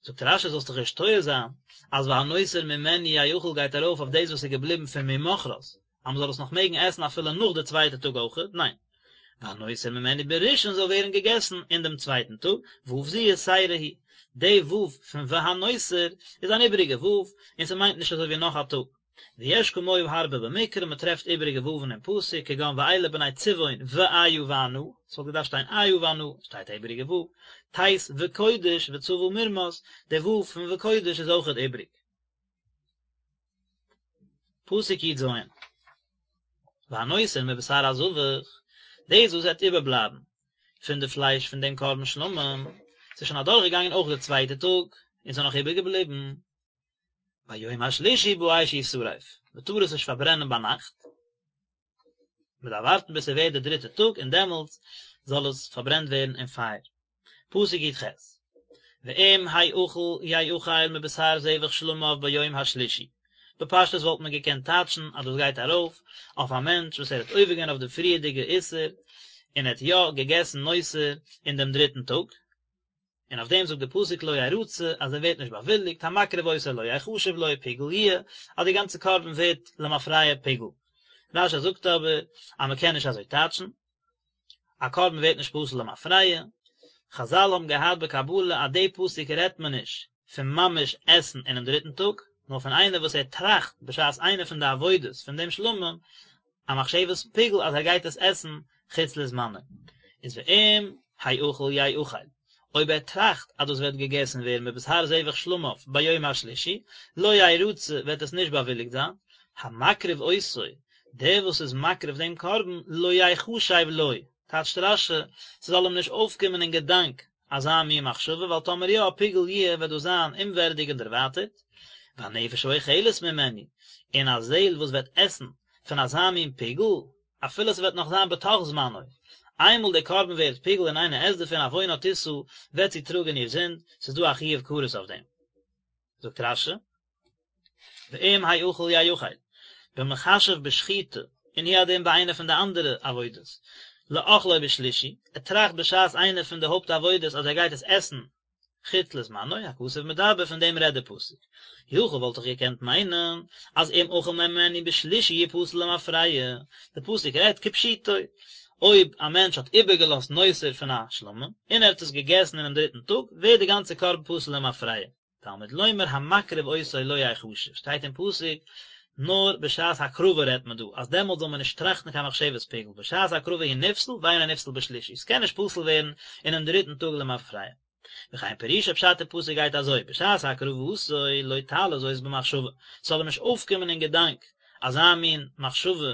זאגט רש"י זאלסט דיך נישט טועה זיין אז והנותר ממנו יאכל גייט ארויף אויף דאס וואס איז געבליבן פון ממחרת, אז מען זאל עס נאך מעגן עסן אפילו נאך די צווייטע טאג אויכעט, ניין, והנותר ממנו בראשון זאל ווערן געגעסן אין דעם צווייטן טאג, ו' זו יתירה היא, די ו' פון והנותר איז אן איבעריגע ו', און ס'מיינט נישט אזוי ווי נאך א טאג. ויש כמוהו הרבה במקרא, מען טרעפט איבעריגע וואוון אין פסוק, כגון ואלה בני צבעון ואיה וענה, ס'וואלט געדארפט שטיין איה וענה, שטייט א איבעריגע וואו, תת וקודש וצבא מרמס, די וואו פון וקודש איז אויכעט איבריג. פסוק י"ז, והנותר מבשר הזבח, דאס וואס וועט איבערבלייבן פון די פלייש פון דעם קרבן שלמים, ס'איז שוין אדורכגעגאנגען אויך די צווייטע טאג, און ס'איז נאך איבערגעבליבן, ביום השלישי באש ישרף, מען טאר עס נישט פארברענען ביינאכט, מען דארף ווארטן ביז ס'ווערט די דריטע טאג און דעמאלטס זאל עס פארברענט ווערן אין פייער. פסוק י"ח, ואם האכל יאכל מבשר זבח שלמיו ביום השלישי, בפשטות וואלט מען געקענט טייטשן אז דאס גייט ארויף אויף א מענטש וואס ער האט עובר געווען אויף די פריערדיגע איסור און ער האט יא געגעסן נותר אין דעם דריטן טאג, און אויף דעם זאגט די פסוק לא ירצה אז ער ווערט נישט באוויליגט, המקריב אותו לא יחשב לו פיגול יהיה, אז די גאנצע קרבן ווערט למפרע פיגול. רש"י זאגט אבער אז מען קען נישט אזוי טייטשן, א קרבן ווערט נישט פסול למפרע, חזל האבן געהאט בקבלה אז די פסוק רעדט מען נישט פון ממש עסן אינעם דריטן טאג, נאר פון איינער וואס ער טראכט בשעת איינע פון די עבודות פון דעם שלמים א מחשבת פיגול אז ער גייט עס עסן חוץ לזמנו, איז ואם האכל יאכל, אויב ער טראכט אז דאס וועט געגעסן ווערן מבשר זבח שלמיו ביום השלישי, לא ירצה וועט עס נישט באוויליגט זיין, המקריב אותו, דער וואס איז מקריב דעם קרבן, לא יחשב לו, טייטשט רש"י, ס'זאל אים נישט אויפקומען אין געדאנק אזא מין מחשבה, ווייל טאמער יא, פיגול יהיה, וועט דאס זיין אומווערדיג און דערווייטערט, והנפש האוכלת ממנו, און א זעהל וואס וועט עסן פון אזא מין פיגול, אפילו ס'וועט נאך זיין בתוך זמנו, איינמאל דער קרבן ווערט פיגול און איינער עסט דערפון עוונה תשא, וועט זי טראגען איר זינד, ס'איז דא א חיוב כרת אויף דעם. זאגט רש"י, ואם האכל יאכל, במחשב בשחיטה, און הוא הדין ביי איינע פון די אנדערע עבודות, לאכלו בשלישי, ער טראכט בשעת איינע פון די הויפט עבודות אז ער גייט עס עסן חוץ לזמנו, הכתוב מדבר, פון דעם רעדט די פסוק. יכול וואלט איך געקענט מיינען אז אם אכל ממנו בשלישי יפסל למפרע, די פסוק רעדט כפשוטו, אויב א מענטש האט איבערגעלאזט נותר פון א שלמים, און ער האט עס געגעסן אינעם דריטן טאג, ווערט די גאנצע קרבן פסול למפרע. תלמוד לומר המקריב אותו לא יחשב, שטייט אין פסוק, נאר בשעת הקרבה רעדט מען דא, אז דעמאלט זאל מען נישט טראכטן קיין מחשבת פיגול, בשעת הקרבה הוא נפסל ואינו נפסל בשלישי, ס'קען נישט פסול ווערן אינעם דריטן טאג למפרע. וכן פירושו פשט אין פסוק גייט אזוי, בשעת הקרבתו לא תעלה זאת במחשבה, ס'זאל אים נישט אויפקומען אין געדאנק אזא מין מחשבה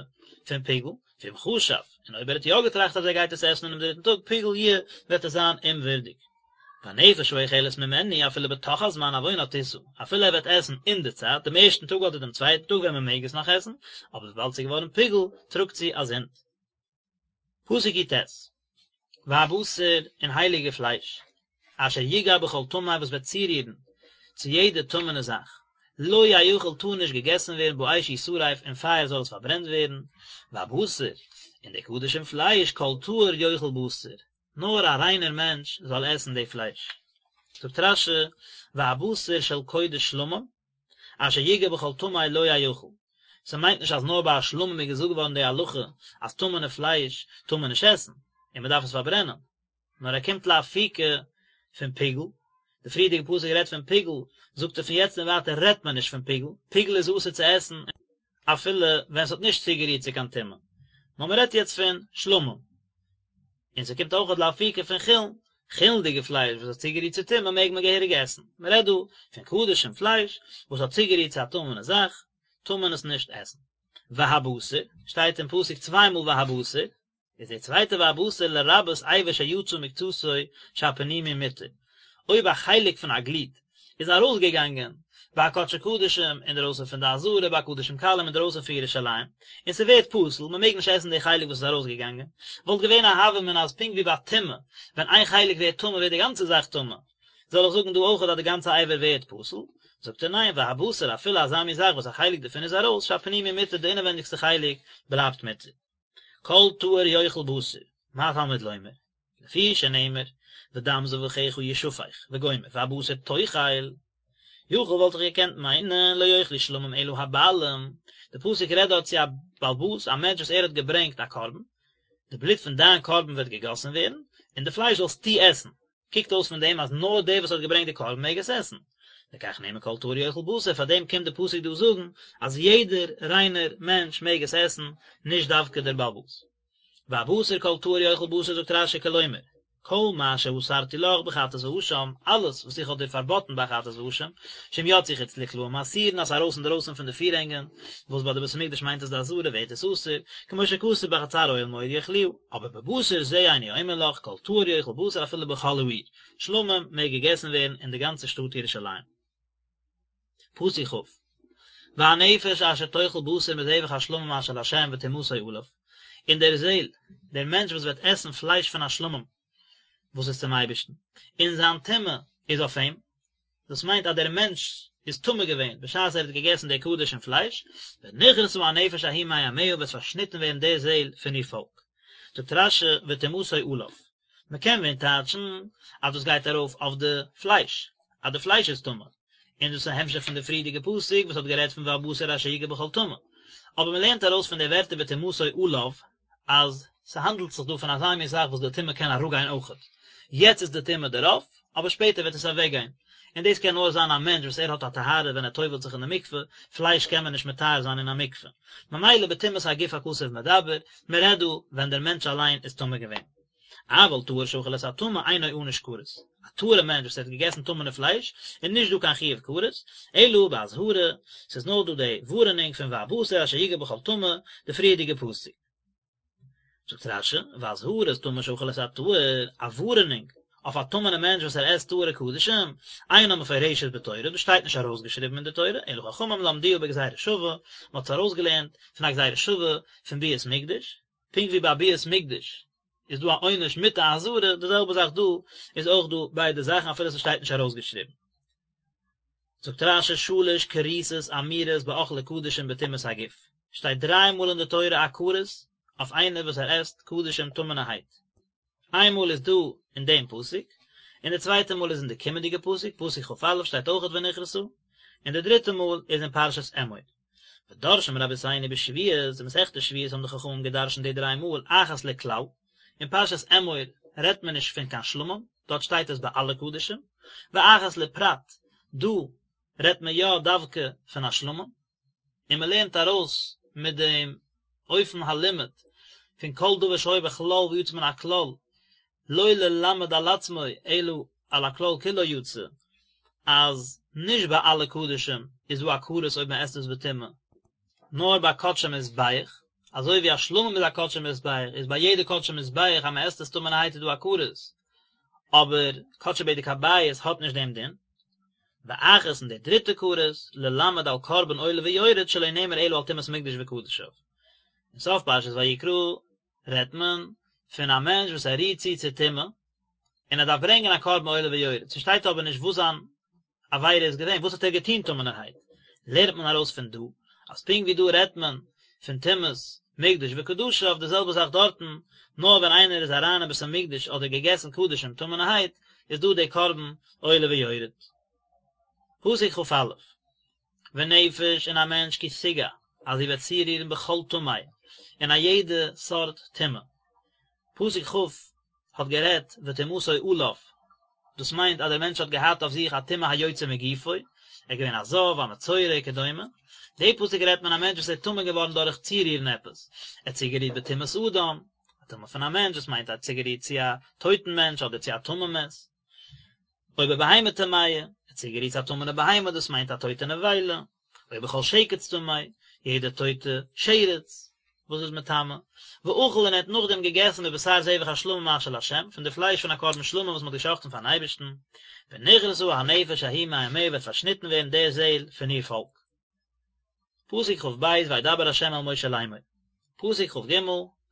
פון פיגול, ואם חשב, און אויב ער האט יא געטראכט אז ער גייט עס עסן אינעם דריטן טאג, פיגול יהיה, וועט עס זיין אומווערדיג. והנפש האוכלת ממנו אפילו בתוך הזמן עוונה תשא, אפילו ער וועט עסן אין די צייט, דעם ערשטן טאג אדער דעם צווייטן טאג ווען מען מעג עס נאך עסן, אבער וויבאלד ס'איז געווארן פיגול, טראגט זי א זינד. פסוק י"ט. והבשר און הייליגע פלייש, אשר יגע בכל טמא וואס וועט צורירן צו יעדע טמא'נע זאך, לא יאכל טאר נישט געגעסן ווערן באש ישרף אין פייער זאל עס פארברענט ווערן, והבשר און די קדשים פלייש כל טהור יאכל בשר, נאר א ריינער מענטש זאל עסן די פלייש. זאגט רש"י, והבשר של קודש שלמים, אשר יגע בכל טמא לא יאכל. ס'מיינט נישט אז נאר ביי א שלמים איז געזאגט געווארן די הלכה אז טמא'נע פלייש טאר מען נישט עסן, און מ'דארף עס פארברענען. נאר ער קומט לאפוקי פון פיגול, די פריערדיגע פסוק רעדט פון פיגול, זאגט ער פון יעצט און ווייטער רעדט מען נישט פון פיגול, פיגול איז אסור צו עסן אפילו ווען ס'האט נישט צוגערירט צו קיין טומאה, נאר מ'רעדט יעצט פון שלמים. און ס'קומט אויכעט לאפוקי פון חולין, חולין'דיגע פלייש וואס האט צוגערירט צו טומאה מעג מען געהעריג עסן, מ'רעדט דא פון קדשים פלייש וואס האט צוגערירט צו א טמא'נע זאך, טאר מען עס נישט עסן. והבשר, שטייט אין פסוק צוויי מאל והבשר, איז די צווייטע והבשר לרבות אבר שיצא מקצתו שהפנימי מותר, אויב א חלק פון א גליד איז ארויסגעגאנגען ביי א קדשי קדשים אינדערויסן פון די עזרה ביי קדשים קלים אינדערויסן פון ירושלים, און ס'ווערט פסול, מ'מעג נישט עסן די חלק וואס איז ארויסגעגאנגען, וואלט געווען א הוה אמינא אז פונקט ווי ביי טומאה, ווען איין חלק ווערט טמא ווערט די גאנצע זאך טמא, זאל איך זאגן דא אויכעט אז די גאנצע אבר ווערט פסול? זאגט ער ניין, והבשר אפילו אזא מין זאך וואס א חלק דערפון איז ארויס, שהפנימי מותר די אינעווענדיגסטע חלק בלייבט מותר. כל טהור יאכל בשר, מה תלמוד לומר? לפי שנאמר, ודם זבחיך ישפך, וגומר, והבשר תאכל, יכול וואלט איך געקענט מיינען לא יאכלו שלמים אלא הבעלים, די פסוק רעדט דארט צו א בעל הבית, א מענטש וואס ער האט געברענגט א קרבן, די בלוט פון דיין קרבן וועט געגאסן ווערן, און די פלייש זאלסטו עסן, קוקט אויס פון דעם אז נאר דער וואס האט געברענגט די קרבן מעג עס עסן. לכך נאמר כל טהור יאכל בשר, פאר דעם קומט די פסוק דא זאגן אז יעדער ריינער מענטש מעג עס עסן, נישט דווקא דער בעל הבית. והבשר כל טהור יאכל בשר זאגט רש"י כלומר, כל מה שאסרתי לך בחטאת ואשם, אלעס וואס איך האב דיר פארבאטן ביי חטאת ואשם, שאם יצאו חוץ לקלעים אסורין אז ארויס אינדערויסן פון די פירהענגען, וואס ביי די בית המקדש מיינט עס די עזרה ווערט עס אסור, כמו שכתוב בחצר אוהל מועד יאכלוה, אבער בבשר זה איני אומר לך, כל טהור יאכל בשר אפילו בכל העיר, שלמים מעג געגעסן ווערן אין די גאנצע שטאט ירושלים. פסוק כ', והנפש אשר תאכל בשר מזבח השלמים אשר לה' וטומאתו עליו, און דער זעל, דער מענטש וואס וועט עסן פלייש פון א שלמים וואס איז צום אייבערשטן, און זיין טומאה איז אויף אים, דאס מיינט אז דער מענטש איז טמא געווען בשעת ער האט געגעסן די קדשים פלייש, ונכרתה הנפש ההיא מעמיה וועט פארשניטן ווערן די זעל פון איר פאלק. זאגט רש"י וטומאתו עליו. מען קען ווען טייטשן אז דאס גייט ארויף אויף די פלייש, אז די פלייש איז טמא, און דאס איז א המשך פון די פריערדיגע פסוק וואס האט גערעדט פון והבשר אשר יגע בכל טמא. אבער מען לערנט ארויס פון די ווערטער וטומאתו עליו אז ס'האנדלט זיך דא פון אזא מין זאך וואס די טומאה קען אראפגיין אויכעט. יעצט איז די טומאה דערויף, אבער שפעטער וועט עס אוועקגיין. און דאס קען נאר זיין א מענטש וואס ער האט א טהרה ווען ער טובל'ט זיך אין די מקווה, פלייש קען מען נישט מטהר זיין אין א מקווה. ממילא בטומאת הגוף הכתוב מדבר, מען רעדט דא ווען דער מענטש אליין איז טמא געווען. אבל טהור שאכל את הטמא אינו ענוש כרת. א טהור'ע מענטש וואס האט געגעסן טמא'נע פלייש, איז נישט דא קיין חיוב כרת, אלא באזהרה, ס'איז נאר דא די ווארענונג פון והבשר אשר יגע בכל טמא, די פריערדיגע פסוק. זאגט רש"י, ואזהרת טמא שאכל את הטהור, א ווארענונג אויף א טמא'נע מענטש וואס ער עסט טהור'ע קדשים, אינה מפורשת בתורה, דאס שטייט נישט ארויסגעשריבן אין די תורה, אלא חכמים למדוה בגזירה שווה, מען האט עס ארויסגעלערנט פון א גזירה שווה פון ביאת מקדש, פונקט ווי ביי ביאת מקדש איז דא א עונש מיט א אזהרה, די זעלבע זאך דא איז אויך דא ביידע זאכן אפילו ס'שטייט נישט ארויסגעשריבן. זאגט רש"י שלש כריתות אמורות באוכלי קדשים בטומאת הגוף, שטייט דריי מאל אין די תורה א כרת אויף איינער וואס ער עסט קדשים טמא'נערהייט, איין מאל איז דא אין דעם פסוק, און די צווייטע מאל איז אין די קומענדיגע פסוק, פסוק כ"א שטייט אויכעט ונכרתה, און די דריטע מאל איז אין פרשת אמור. ודורשין רבותינו בשבועות, אין מסכת שבועות האבן די חכמים געדרשנט די דריי מאל אחת לכלל, אין פרשת אמור רעדט מען נישט פון קיין שלמים, דארט שטייט עס ביי אלע קדשים, ואחת לפרט, דא רעדט מען יא דווקא פון א שלמים, און מען לערנט ארויס מיט דעם אופן הלימוד פון כל דבר שהיה בכלל ויצא מן הכלל, לא ללמד על עצמו אלא על הכלל כולו יצא, אז נישט ביי אלע קדשים איז דא א כרת אויב מען עסט עס בטומאה, נאר ביי קדשי מזבח, אזוי ווי א שלמים איז א קדשי מזבח, איז ביי יעדע קדשי מזבח אז מען עסט עס טמא'נערהייט איז דא א כרת, אבער קדשי בדק הבית האט נישט דעם דין. ואחת און די דריטע כרת, ללמד על קרבן עולה ויורד שלא נאמר אלא על טומאת מקדש וקדשיו. אין סוף פרשת ויקרא רעדט מען. פון א מענטש וואס ער רירט צו צו טומאה, און ער דארף ברענגען א קרבן עולה ויורד, ס'שטייט אבער נישט וואס זיין עבירה איז געווען, וואס האט ער געטון טמא'נערהייט, לערנט מען ארויס פון דא, אז פונקט ווי דא רעדט מען פון טומאת מקדש וקדשיו, די זעלבע זאך דארטן, נאר ווען איינער איז אריין אין בית המקדש אדער געגעסן קדשים טמא'נערהייט, איז דא די קרבן עולה ויורד. פסוק כ"א, ונפש און א מענטש כי תגע, אז זי וועט צורירן בכל טמא, אין א יעדע סארט טומאה. פסוק כ' האט גערעדט וטומאתו עליו, דאס מיינט אז דער מענטש האט געהאט אויף זיך א טומאה היוצא מגופו, ער איז געווען א זב, א מצורע, וכדומה. די פסוק רעדט מען א מענטש וואס איז טמא געווארן דורך צורירן עפעס, ער האט צוגערירט בטומאת אדם, א טומאה פון א מענטש, דאס מיינט ער האט צוגערירט צו א טויטן מענטש אדער צו א טמא מת. או בבהמה טמאה, ער האט צוגערירט צו א טמא'נע בהמה, דאס מיינט א טויטע נבילה, או בכל שקץ טמא, יעדע טויטע שרץ וואס איז מטמא, ואכל און ער האט נאכדעם געגעסן מבשר זבח השלמים אשר לה', פון די פלייש פון א קרבן שלמים וואס מען האט געשחט'ן פארן אייבערשטן, ונכרתה הנפש ההיא מעמיה וועט פארשניטן ווערן די זעל פון איר פאלק. פסוק כ"ב וידבר ה' אל משה לאמור. פסוק כ"ג,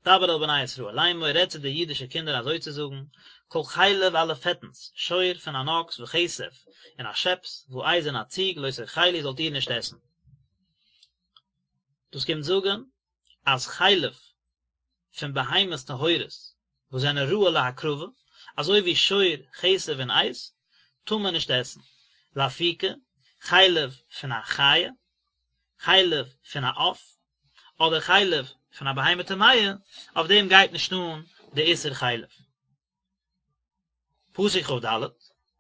דבר אל בני ישראל לאמור, רעד צו די אידישע קינדער אזוי צו זאגן, כל חלב אלע פעטנס, שור פון אן אקס וכשב, און א שעפס, ועז און א ציג, לא תאכלו זאלט איר נישט עסן. דאס קומט זאגן אז חלב פון בהמות טהורות וואס זענען ראוי להקרבה, אזוי ווי שור, כשב און עז, טאר מען נישט עסן. לאפוקי, חלב פון א חיה, חלב פון א עוף, אדער חלב פון א בהמה טמאה, אויף דעם גייט נישט אן די איסור חלב. פסוק כ"ד,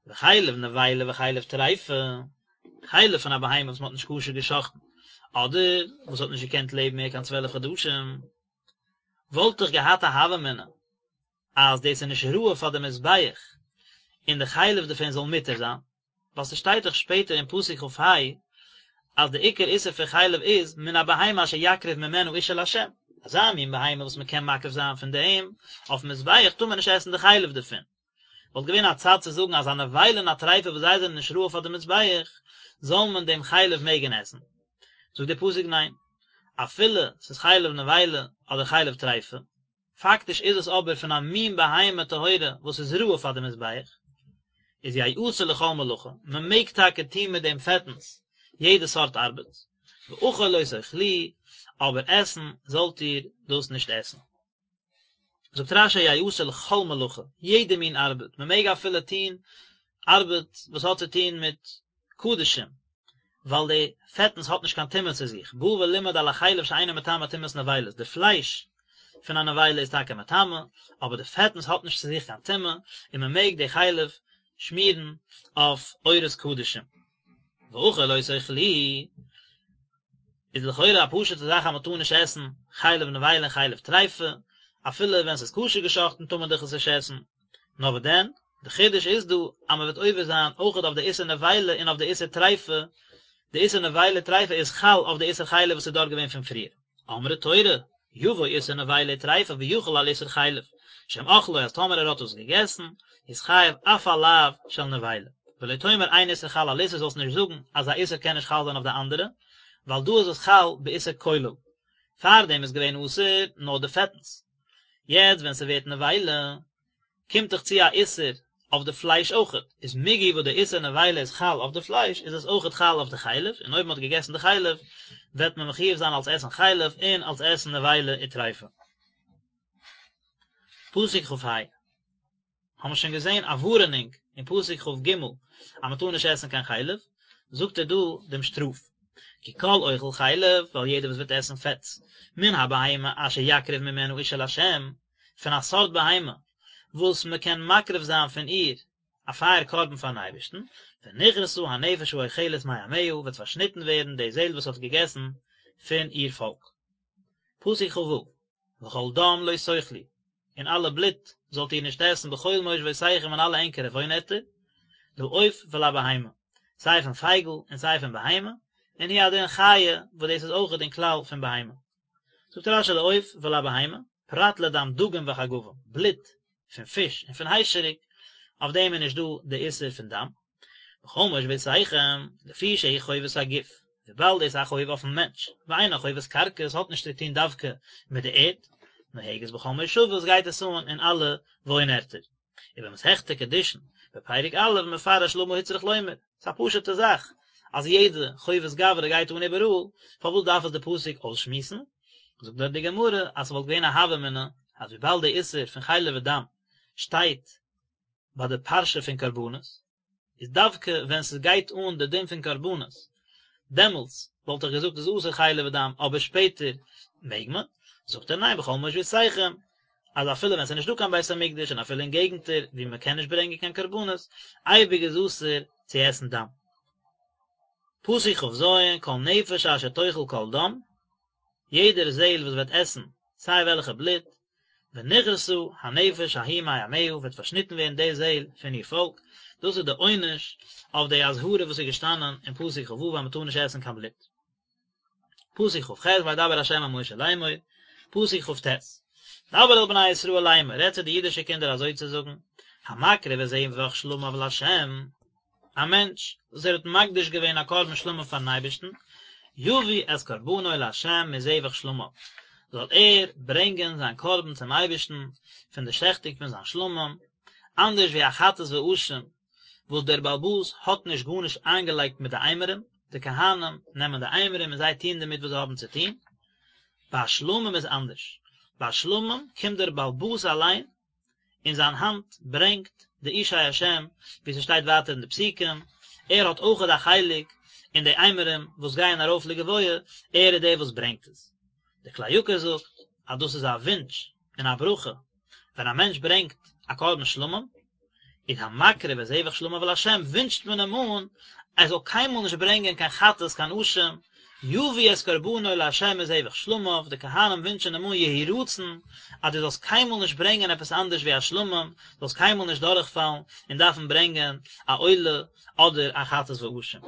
וחלב נבילה וחלב טריפה, חלב פון א בהמה וואס מען האט נישט כשר גע'שחט'ן, אדער וואס האט נישט געקענט לעבן מער קיין צוועלף חדשים, וואלט איך געהאט א הוה אמינא אז דאס איז נישט ראוי פאר די מזבח און די חלב דערפון זאל מותר זיין, ווייל ס'שטייט דאך שפעטער אין פסוק כ"ה אז די עיקר איסור פון חלב איז מן הבהמה אשר יקריב ממנה אשה לה', אזא מין בהמה וואס מ'קען מקריב זיין פון דעם אויפן מזבח טאר מען נישט עסן די חלב דערפון. וואלט געווען א צד צו זאגן אז א נבילה און א טריפה וואס זיי זענען נישט ראוי פאר די מזבח זאל מען דעם חלב מעגן עסן. זאגט דער פסוק ניין, אפילו ס'איז חלב נבילה אדער חלב טריפה, פאקטיש איז עס אבער פון א מין בהמה טהורה וואס איז ראוי פאר די מזבח, איז יעשה לכל מלאכה, מען מעג טאקע טון מיט דעם פעטנס יעדע סארט ארבעט, ואכול לא תאכלוהו, אבער עסן זאלט איר דאס נישט עסן. זאגט רש"י יעשה לכל מלאכה, יעדע מין ארבעט, מען מעג אפילו טון ארבעט וואס האט צו טון מיט קדשים, ווייל די פעטנס האט נישט קיין טומאה צו זיך, בא ולימד על החלב שאינו מטמא טומאת נבילות, די פלייש פון א נבילה איז טאקע מטמא, אבער די פעטנס האט נישט צו זיך קיין טומאה, און מען מעג די חלב שמירן אויף עורות קדשים. ואכול לא תאכלוהו, איז לכאורה א פשוט'ע זאך אז מען טאר נישט עסן חלב נבילה און חלב טריפה, אפילו ווען ס'איז כשר געשאכטן טאר מען דאך עס נישט עסן, נאר וואס דען, די חידוש איז דא אז מען וועט עובר זיין אויכעט אויף די איסור נבילה און אויף די איסור טריפה, די איסור נבילה טריפה איז חל אויף די איסור חלב וואס איז דארט געווען פון פריער. אמרה תורה, יבוא איסור נבילה וטריפה ויחול על איסור חלב, שאם אכלו אז טאמער ער האט עס געגעסן, איז חייב אף על לאו של נבילה. ולא תאמר אין איסור חל על איסור זאלסט נישט זאגן אז א איסור קען נישט חל זיין אויף די אנדערע, ווייל דא איז עס חל באיסור כולל. פארדעם איז געווען אסור נאר די פעטנס. יעצט ווען ס'ווערט נבילה, קומט דאך צו א איסור אויף די פלייש אויכעט, איז מיגו וואס די איסור נבילה איז חל אויף די פלייש איז עס אויכעט חל אויף די חלב, און אויב מען האט געגעסן די חלב וועט מען מחויב זיין אלס עסן חלב און אלס עסן נבילה וטריפה. פסוק כ"ה האבן מיר שוין געזען א ווארענונג אין פסוק כ"ג אז מען טאר נישט עסן קיין חלב, זאגט ער דא דעם שטראף, כי כל אוכל חלב, ווייל יעדער וואס וועט עסן פעטס, מן הבהמה אשר יקריב ממנה אשה לה', פון א סארט בהמה וואס מען קען מקריב זיין פון איר א פייער קרבן פארן אייבערשטן, ונכרתה הנפש האוכלת מעמיה, וועט פארשניטן ווערן די זעל וואס האט געגעסן פון איר פאלק. פסוק כ"ו, וכל דם לא תאכלו, און אלע בלוט זאלט איר נישט עסן בכל מושבותיכם אין אלע ענקערע וואוינערטער, לעוף ולבהמה, סיי פון פייגל און סיי פון בהמה, און הוא הדין חיה, וואס דאס איז אויכעט אין כלל פון בהמה. זאגט רש"י לעוף ולבהמה, פרט לדם דגים וחגבים, בלוט פון פיש און פון היישעריק, אויף דעם איז נישט דא די איסור פון דם. בכל מושבותיכם, לפי שהיא חובת הגוף, וויבאלד דאס איז א חוב אויפן מענטש, ואינה חובת קרקע, עס האט נישט צו טון דווקא מיט די ערד, נוהגת בכל מושבות גייט עס אן אין אלע וואוין ערטער. ובמסכת קידושין, בפרק א', מפרש למה הוצרך לומר, ס'איז א פשוט'ע זאך אז יעדע חובת גברא גייט אן איבעראל, פארוואס דארף עס די פסוק אויסשמועסן? זאגט דארט די גמרא אז ס'וואלט געווען א הוה אמינא אז וויבאלד די איסור פון חלב ודם שטייט ביי די פרשה פון קרבנות, איז דווקא ווען ס'גייט אן די דין פון קרבנות, דעמאלטס וואלט איך געזאגט איז אסור חלב ודם, אבער שפעטער מעג מען, זאגט ער ניין בכל מושבותיכם, אז אפילו ווען ס'איז נישטא קיין בית המקדש און אפילו אין געגנטער ווי מען קען נישט ברענגען קיין קרבנות, אייביג איז אסור צו עסן דם. פסוק כ"ז, כל נפש אשר תאכל כל דם, יעדער זעהל וואס וועט עסן סיי וועלכע בלוט, ונכרתה הנפש ההיא מעמיה וועט פארשניטן ווערן די זעהל פון איר פאלק, דאס איז די עונש אויף די אזהרה וואס איז געשטאנען אין פסוק כ"ו אז מען טאר נישט עסן קיין בלוט. פסוק כ"ח וידבר ה' אל משה לאמור, פסוק כ"ט, דבר אל בני ישראל לאמור, רעד צו די אידישע קינדער אזוי צו זאגן, המקריב את זבח שלמיו לה', א מענטש וואס ער האט מקדיש געווען א קרבן שלמים פארן אייבערשטן, יביא את קרבנו לה' מזבח שלמיו, זאל ער ברענגען זיין קרבן צום אייבערשטן פון די שעכטונג פון זיין שלמים, אנדערש ווי א חטאת ואשם וואס דער בעל הבית האט נישט גארנישט איינגעלייגט מיט די אימורים, די כהנים נעמען די אימורים און זיי טוען דערמיט וואס זיי האבן צו טון, ביי שלמים איז אנדערש, ביי שלמים קומט דער בעל הבית אליין און זיין האנט ברענגט די אשי השם, ווי ס'שטייט ווייטער אין די פסוקים, ער האט אויכעט א חלק אין די אימורים וואס גייען ארויף לגבוה, ער איז דער וואס ברענגט עס. דער כלי יקר זאגט אז דאס איז א וואונטש און א ברכה ווען א מענטש ברענגט א קרבן שלמים, איז המקריב את זבח שלמיו לה' ווינטשט מען אים אן ער זאל קיינמאל נישט ברענגען קיין חטאת קיין אשם, יביא את קרבנו לה' מזבח שלמיו, די כהנים ווינטשען אים אן יהי רצון אז דו זאלסט קיינמאל נישט ברענגען עפעס אנדערש ווי א שלמים, זאלסט קיינמאל נישט דורכפאלן און דארפן ברענגען א עולה אדער א חטאת ואשם.